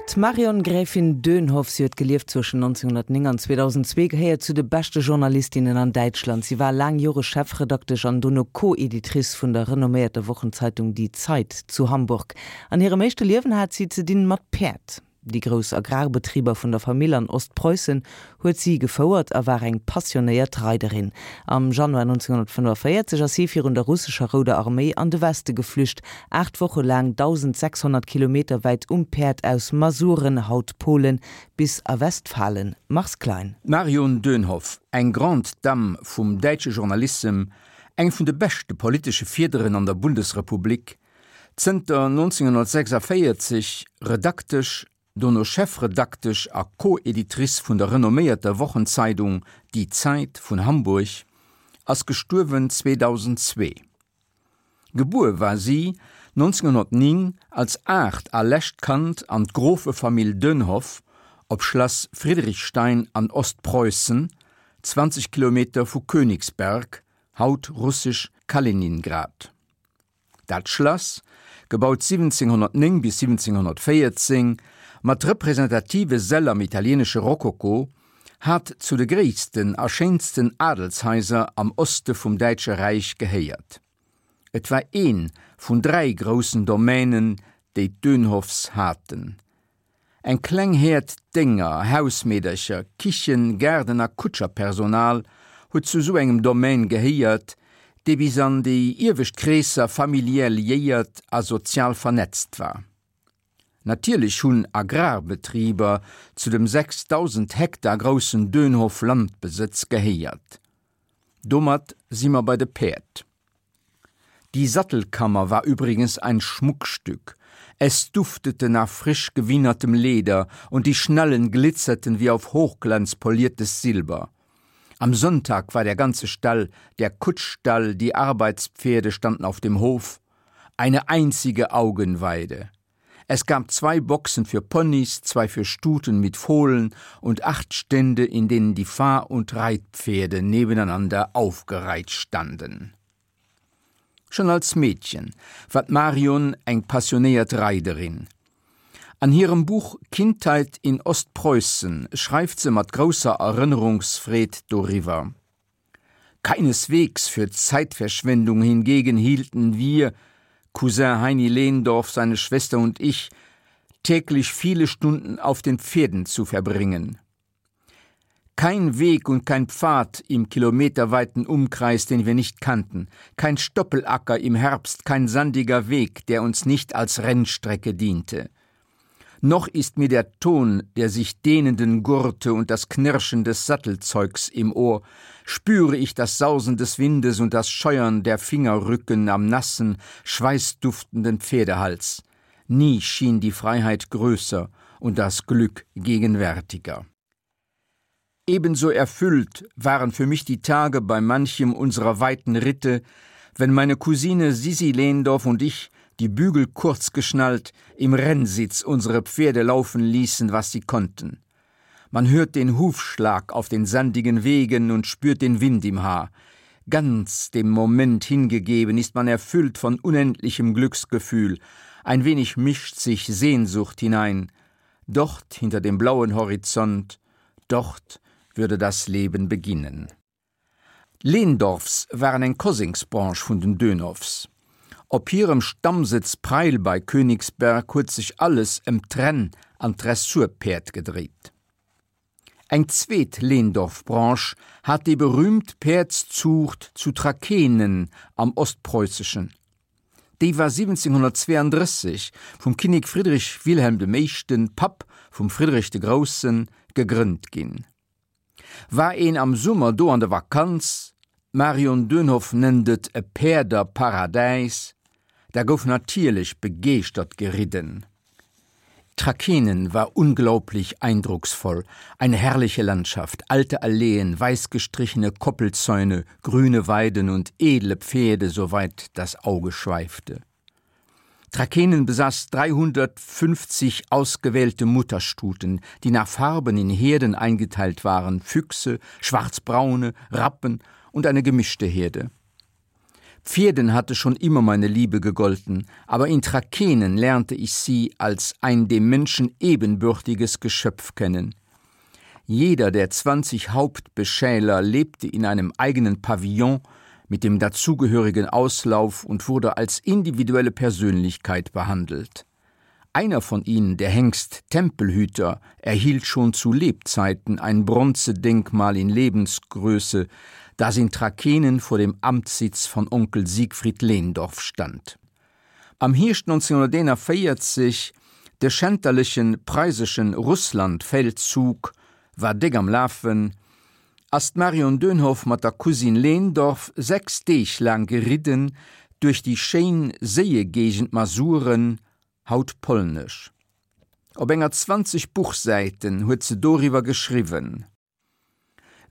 D'Marion Gräfin Dönhoff, si huet gelieft zwëschen 1909 an 2002, gehéiert zu de beschte Journalistinnen an Däitschland. Si war laang Jore Chefredaktesch an dono Co-Editrice vun der renomméierter Wochenzeitung Die Zeit zu Hamburg. An hirem éischte Liewen hat si ze dinn mat Päerd. Déi grouss Agrarbetriber vun der Famill an Ostpreussen huet si gefouert a war eng passionéiert Reiderin. Am Januar 1945 ass si virun der russescher Rouder Arméi an de Weste geflücht, 8 Woche laang 1.600 Kilometer wäit um Päerd aus Masuren, haut Polen, bis a Westfalen. Mars Klein. D'Marion Dönhoff, eng Grande Dame vum däitsche Journalissem, eng vun de beschte politesche Fiederen an der Bundesrepublik, Zënter 1946 Redaktesch, dono Chefredaktesch a Co-Editrice vun der renomméierter Wochenzeidung Die Zeit vun Hamburg, ass gestuerwen 2002. Gebuer war si 1909 als aacht a lescht Kand an d'Grofefamill Dönhoff op Schlass Friedrichstein an Ostpreußen, 20 Kilometer vu Königsberg, haut russesch Kaliningrad. Dat Schlass, gebaut 1709 bis 1714, mat representative Säll am italieenesche Rokoko, hat zu de gréissten a schéinsten Adelshaiser am Oste vum Däitsche Räich gehéiert. Et war ee vun dräi groussen Domänen, déi d'Dönhoffs haten. Eng kleng Häerd Dénger, Hausmeedercher, Kichen-, Gaarden a Kutscherpersonal huet zu sou engem Domaine gehéiert, dee bis an déi iewescht Kreesser familiär liéiert a sozial vernetzt war. Natierlech hunn Agrarbetriber zu dem 6.000 Hektar groussen Dönhoff-Landbesëtz gehéiert. Domat si mer bei de Päerd. Die Sattelkammer war übrigens ein Schmuckstück. Es duftete nach frisch gewienertem Leder und die Schnallen glitzerten wie auf Hochglanz poliertes Silber. Am Sonntag war der ganze Stall, der Kutschstall, die Arbeitspferde standen auf dem Hof, eine einzige Augenweide. Es gab zwei Boxen für Ponys, zwei für Stuten mit Fohlen und acht Stände, in denen die Fahr- und Reitpferde nebeneinander aufgereiht standen. Schon als Meedchen war d'Marion eng passionéiert Reiderin. An hirem Buch Kindheit in Ostpreußen schreift se mat grousser Erënnerungsfreed doriwwer. Keineswegs für Zeitverschwendung hingegen hielten wir, Cousin Heini Lehndorff, seine Schwester und ich, täglich viele Stunden auf den Pferden zu verbringen. Kein Weg und kein Pfad im kilometerweiten Umkreis, den wir nicht kannten, kein Stoppelacker im Herbst, kein sandiger Weg, der uns nicht als Rennstrecke diente. Noch ist mir der Ton der sich dehnenden Gurte und das Knirschen des Sattelzeugs im Ohr, spüre ich das Sausen des Windes und das Scheuern der Fingerrücken am nassen, schweißduftenden Pferdehals. Nie schien die Freiheit größer und das Glück gegenwärtiger. Ebenso erfüllt waren für mich die Tage bei manchem unserer weiten Ritte, wenn meine Cousine Sisi Lehndorf und ich, die Bügel kurz geschnallt, im Rennsitz unsere Pferde laufen ließen, was sie konnten. Man hört den Hufschlag auf den sandigen Wegen und spürt den Wind im Haar. Ganz dem Moment hingegeben ist man erfüllt von unendlichem Glücksgefühl. Ein wenig mischt sich Sehnsucht hinein. Dort hinter dem blauen Horizont, dort würde das Leben beginnen. D'Lehndorffs waren eng Kosengsbranche vun den Dönhoffs. Op hirem Stammsëtz Preil bei Königsberg huet sech alles ëm d'Renn an d'Dressurpäerd gedréit. Eng zweet Lehndorff-Branche hat déi berüümt Päerdszuucht zu Trakehnen am Ostpreusseschen. Déi war 1732 vum Kinnek Friedrich Wilhelm dem Éischten, Papp vum Friedrich de Groussen, gegrënnt ginn. War een am Summer do an der Vakanz, d'Marion Dönhoff nennt et e Päerderparadäis, da gouf natierlech begeeschtert geridden. Trakehnen war unglaublich eindrucksvoll, eine herrliche Landschaft, alte Alleen, weißgestrichene Koppelzäune, grüne Weiden und edle Pferde, soweit das Auge schweifte. Trakehnen besaß 350 ausgewählte Mutterstuten, die nach Farben in Herden eingeteilt waren, Füchse, schwarzbraune, Rappen und eine gemischte Herde. Pferden hatte schon immer meine Liebe gegolten, aber in Trakenen lernte ich sie als ein dem Menschen ebenbürtiges Geschöpf kennen. Jeder der 20 Hauptbeschäler lebte in einem eigenen Pavillon mit dem dazugehörigen Auslauf und wurde als individuelle Persönlichkeit behandelt. Einer von ihnen, der Hengst Tempelhüter, erhielt schon zu Lebzeiten ein Bronzedenkmal in Lebensgröße, das in Trakenen vor dem Amtssitz von Onkel Siegfried Lehndorf stand. Am Hierscht 1941, de schänterlechen preiseschen Russlandfeldzug war déck am Lafen, ass d'Marion Dönhoff mat der Cousine Lehndorff 6 Deeg laang geridden duerch déi schéin Séiegéigend Masuren, haut polnesch. Op enger 20 Buchsäiten huet se doriwwer geschriwwen.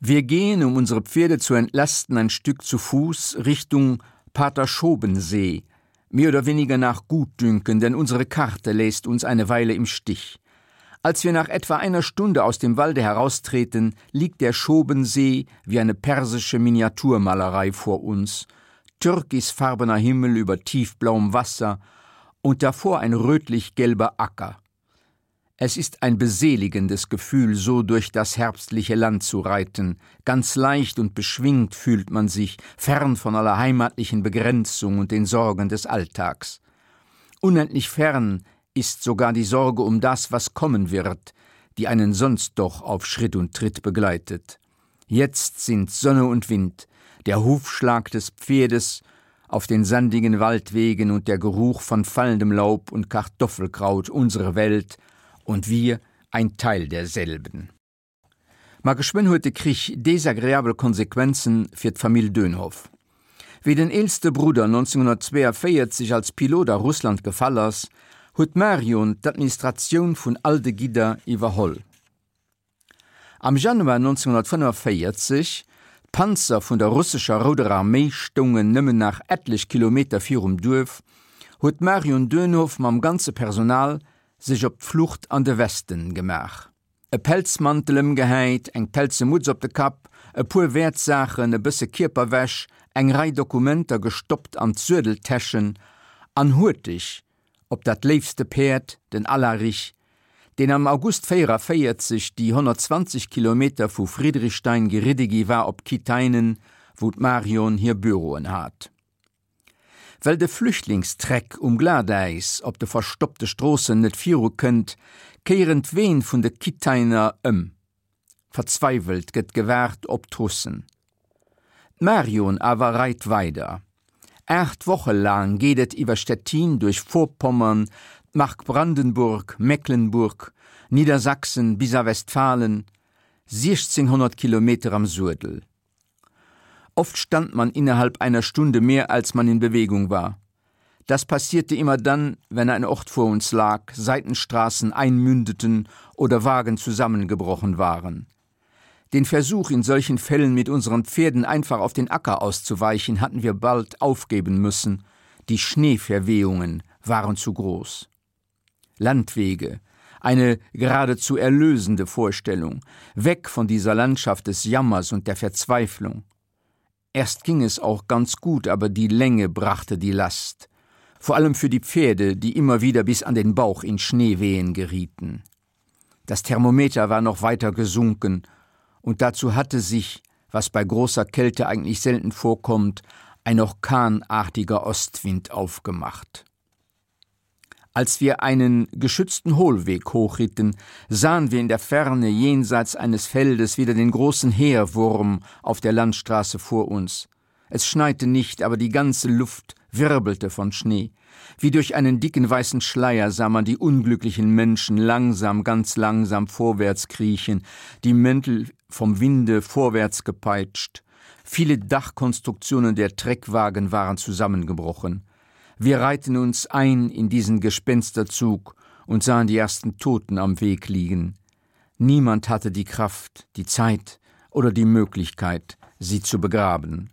Wir gehen, um unsere Pferde zu entlasten, ein Stück zu Fuß Richtung Paterschobensee, mehr oder weniger nach Gutdünken, denn unsere Karte lässt uns eine Weile im Stich. Als wir nach etwa einer Stunde aus dem Walde heraustreten, liegt der Schobensee wie eine persische Miniaturmalerei vor uns, türkisfarbener Himmel über tiefblauem Wasser und davor ein rötlich-gelber Acker. Es ist ein beseligendes Gefühl, so durch das herbstliche Land zu reiten. Ganz leicht und beschwingt fühlt man sich, fern von aller heimatlichen Begrenzung und den Sorgen des Alltags. Unendlich fern ist sogar die Sorge um das, was kommen wird, die einen sonst doch auf Schritt und Tritt begleitet. Jetzt sind Sonne und Wind, der Hufschlag des Pferdes auf den sandigen Waldwegen und der Geruch von fallendem Laub und Kartoffelkraut unsere Welt und wir ein Teil derselben. Ma geschwënn huet de Krich desagreabel Konsequenzen fir d'Famill Dönhoff. Wéi den eelste Brudder 1942 als Pilot a Russland gefall ass, huet d'Marion d'Administratioun vun all de Gidder iwwerholl. Am Januar 1945, d'Panzer vun der russescher Rouder Arméi stoungen nëmmen nach etlech Kilometer virum Duerf, huet d'Marion Dönhoff mam ganze Personal sech op d'Flucht an de Westen gemaach. E Pelzmantel ëmgehäit, eng pelze Mutz op de Kapp, e puer Wäertsaachen, e bësse Kierperwäsch, eng Rei Dokumenter gestoppt an d'Suedeltäschen an huerteg op dat léifste Päerd, den Alarich, deen am August 44 déi 120 Kilometer vu Friedrichstein geridde gi war op Kitainen, wou d'Marion hir Büroen hat. Well de Flüchtlingstreck um Glatäis op de verstoppte Stroossen net viru kënnt, kéieren d'Ween vun de Kitainer ëm. Verzweiwelt gëtt gewaart op d'Russen. D'Marion awer reit weider. 8 Woche laang geet et iwwer Stettin duerch Vorpommern, d'Mark Brandenburg, Mecklenburg, Niedersachsen bis a Westfalen, 1600 Kilometer am Suedel. Oft stand man innerhalb einer Stunde mehr als man in Bewegung war. Das passierte immer dann, wenn ein Ort vor uns lag, Seitenstraßen einmündeten oder Wagen zusammengebrochen waren. Den Versuch, in solchen Fällen mit unseren Pferden einfach auf den Acker auszuweichen, hatten wir bald aufgeben müssen. Die Schneeverwehungen waren zu groß. Landwege, eine geradezu erlösende Vorstellung, weg von dieser Landschaft des Jammers und der Verzweiflung. Erst ging es auch ganz gut, aber die Länge brachte die Last. Vor allem für die Pferde, die immer wieder bis an den Bauch in Schneewehen gerieten. Das Thermometer war noch weiter gesunken, und dazu hatte sich, was bei großer Kälte eigentlich selten vorkommt, ein orkanartiger Ostwind aufgemacht. Als wir einen geschützten Hohlweg hochritten, sahen wir in der Ferne jenseits eines Feldes wieder den großen Heerwurm auf der Landstraße vor uns. Es schneite nicht, aber die ganze Luft wirbelte von Schnee. Wie durch einen dicken weißen Schleier sah man die unglücklichen Menschen langsam, ganz langsam vorwärts kriechen, die Mäntel vom Winde vorwärts gepeitscht. Viele Dachkonstruktionen der Treckwagen waren zusammengebrochen. Wir reihten uns ein in diesen Gespensterzug und sahen die ersten Toten am Weg liegen. Niemand hatte die Kraft, die Zeit oder die Möglichkeit, sie zu begraben.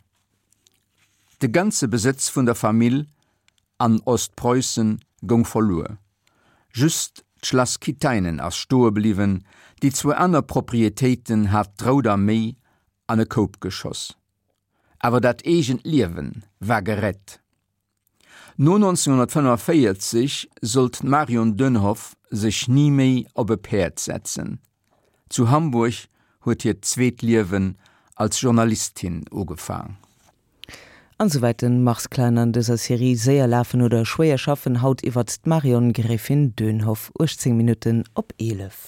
De ganze Besëtz vun der Famill an Ostpreußen goung verluer. Just d'Schlass Kitainen ass stoe bliwwen, déi zwou aner Proprietéiten hat d'Rout Arméi an e Koup geschoss. Awer dat eegent Liewen war gerett. No 1945 sollt d'Marion Dönhoff sech ni méi op e Päerd setzen. Zu Hamburg huet hiert zweet Liewen als Journalistin ugefaang. An souwäit den Mars Klein an dëser Serie Séier lafen oder schwéier schaffen, haut iwwert d'Marion Gräfin Dönhoff, 18 Minutten op 11.